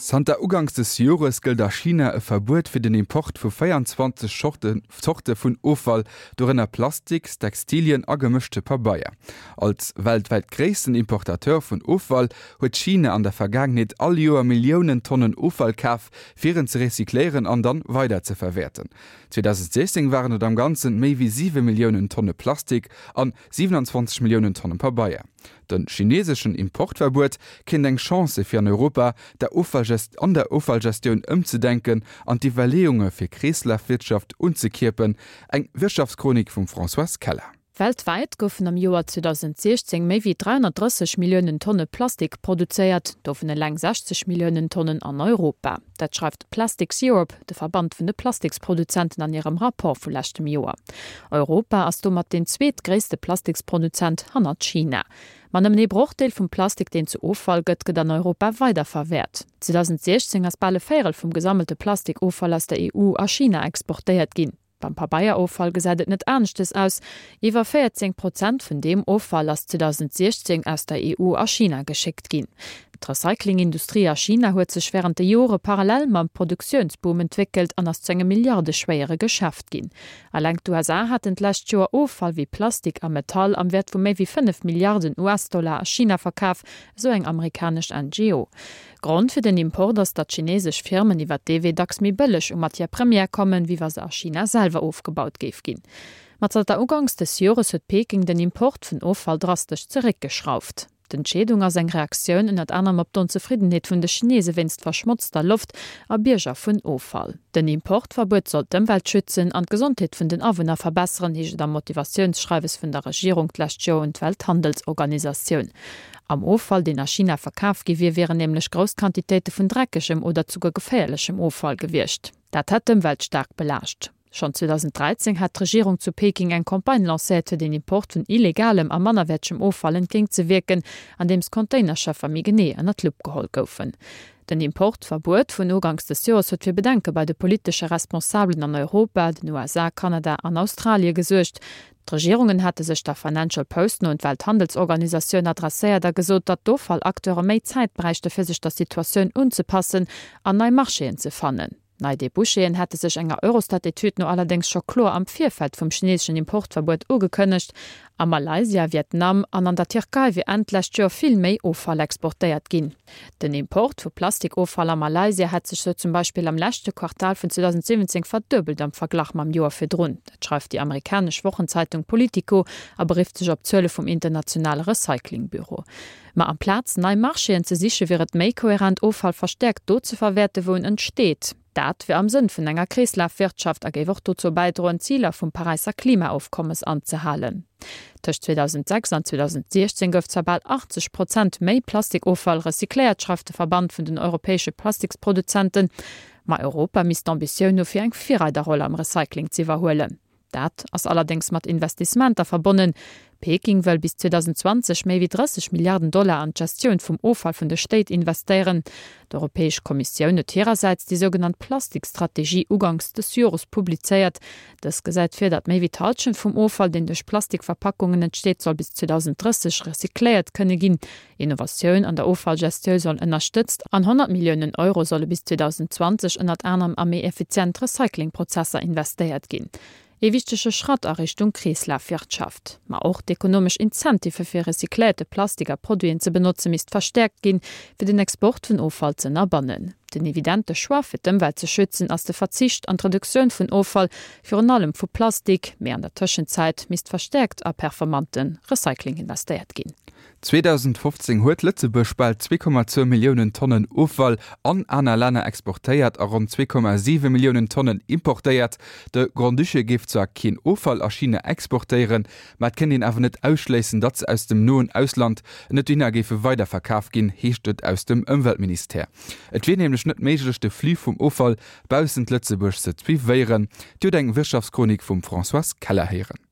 Zanter Uganks des Jores gëllt a China e Verbuet fir den Import vu 24 Zorte vun Offall, dorënner Plastiks, Textilien a gemëschte Pabeier. Als weltwäit gréissten Importateur vun Offall huet China an der Vergaangenheet all Joer Milliounen Tonnen Offall kaf, fir en ze recycléieren an dann weider ze verwäerten. 2016 waren et am Ganzen méi wéi 7 Milliounen Tonne Plastik an 27 Milliounen Tonnen Pabeier. De chineseschen Importverbuet kéint eng Chance si fir an Europa der an der Offallgestioun ëmzedenken an d'Iwwerleeunge fir Kreeslafwirtschaft unzekierpen. Eng Wirtschaftschronik vum Françoise Keller. Weltwäit goufen am Joer 2016 méi wéi 330 Milliounen Tonne Plastik produzéiert, dovun eleng 60 Milliounen Tonnen an Europa. Dat schreift Plastics Europe, de Verband vun de Plastiksproduzenten an hirem Rapport vu leschtem Joer. Europa ass domat deen zweetgréisste Plastiksproduzent hannert China. Ma nëmmen ee Brochdeel vum Plastik, deen zu Offall gëtt, gëtt an Europa weiderverwäert. 2016 ass bal e Véierel vum gesammelte Plastikoffall aus der EU a China exportéiert ginn. Beim Pabeieroffall gesäit et net aneschtes aus, Iwwer 14 Prozent vun deem Offall ass 2016 aus der EU a China geschéckt ginn. D'Recyclingindustrie a China huet sech wärend de Jore parallel mam Produktiounsboom entwéckelt an ass zu engem milliardeschwéiere Geschäft ginn. Eleng d'USA haten d'lescht Joer Offall wéi Plastik a Metall am Wäert vu méi wéi 5 Milliarden US-Dollar a China verkaf, esou eng amerikanesch NGO. Grond fir den Import ass, datt chinesesch Firmen iwwer dee Wee dacks méi bëlleg u Matière première kommen, wéi wa se a China selwer ofgebaut géif ginn. Ma zanter Uganks des Jores huet Peking den Import vun Offall drastesch zeréckgeschrauft. D'Entscheedung ass eng Reaktioun ënnert anerem op d'Onzefriddenheet vun de Chinese wéinst verschmotzter Loft a Bierger vun Offall. Den Importverbuet soll d'Ëmwelt schützen an d'Gesondheet vun den Awunner verbesseren, heescht et am Motivatiounsschreiwes vun der Regierung d'lescht Joer un d'Welthandelsorganisatioun. Am Offall, deen a China verkaf gi wier, wieren nämlech grouss Quantitéite vun dreckegem oder zuguer geféierlechem Offall gewiescht. Dat hätt d'Ëmwelt staark belaascht. Schonn 2013 hat d'Regierung zu Peking eng Campagne lancéiert, fir den Import vun illegalem a mannerwäertegem Offall entgéintzewierken, andeems Containerschëffer méi genee ënner d'Lupp geholl goufen. Den Importverbuet vun uganks des Joers huet fir Bedenke bei de politesche Responsabelen an Europa, den USA, Kanada an Australie gesuergt. D'Regierungen hate sech der Financial Post no un d'Welthandelsorganisatioun adresséiert a gesot, datt d'Offallacteure méi Zäit bräichte fir sech der Situatioun unzepassen an nei Marchéen ze fannen. Nei Debouchéen hätte sech enger Eurostat-Etüd no allerdéngs scho kloer am Virfeld vum chineeseschen Importverbuet ugekënnegt. A Malaysia, Vietnam an an der Tierkei wier Enn d'lescht Joer vill méi Offall exportéiert ginn. Den Import vu Plastikoffall a Malaysia hätt sech sou zum Beispill am leschte Quartal vun 2017 verduebelt am Verglach mam Joer virdrun. Dat schreift déi amerikanesch Wochenzeitung Politico a berifft sech op Zuele vum internationale Recyclingbüro. Ma amplaz nei Marchéen ze siche wier et méi koherent Offall verstäerkt do ze verwäerte wou en entsteet. Dat wier am Sënn vun enger Kreeslafwirtschaft a géif och dozou bäidroen d'Ziler vum Paräisser Klimaofkommes anzehalen. Tëscht 2006 an 2016 gouf zwar bal 80 Prozent méi Plastikoffall recycléiert, schreift de Verband vun den europäesche Plastiksproduzenten. Ma Europa misst d'Ambitioun hu fir eng Virreiderroll am Recycling z'iwwerhuelen. Dat ass allerdéngs mat Investissementer verbonnen. Peking wëll bis 2020 méi wéi 30 Milliarden Dollar an d'Gestioun vum Offall vun de Stéit investéieren. D'Europäesch Kommissioun huet hirersäits déi sougenannt Plastikstrategie uganks des Jores publizéiert. Dës gesäit vir, datt méi wéi d'Hallschent vum Offall, deen duerch Plastikverpackungen entsteet, soll bis 2030 recycléiert kënne ginn. Innovatioun an der Offallgestiou soll ënnerstëtzt an 100 Milliounen Euro solle bis 2020 ënnert anerem a méi effizient Recyclingprozesser investéiert ginn. Ee wichtege Schratt a Richtung Kreeslafwirtschaft. Ma och d'ekonomesch Incentivë fir recycléierte Plastik a Produiten ze benotze misst verstäerkt ginn, fir den Export vun Offall ze ënnerbannen. Den evidente Choix fir d'Ëmwelt ze schützen ass de Verzicht an d'Reduktioun vun Offall, virun allem vu Plastik. Mee an der Tëschenzäit misst verstäerkt a performante Recycling investéiert ginn. 2015 huet Lëtzebuerg bal 2,2 Milliounen Tonnen Offall an aner Länner exportéiert a ronn 2,7 Milliounen Tonnen importéiert. De Grand-Duché géif zwar keen Offall a China exportéieren, ma et kéint een awer net ausschléissen, datt se aus dem noen Ausland net dohinner géife weiderverkaf ginn, heescht et aus dem Ëmweltministère. Et wier nämlech net méiglech, de Flux vum Offall baussent Lëtzebuerg ze suivéieren. Dir hutt eng Wirtschaftschronik vum Françoise Keller héieren.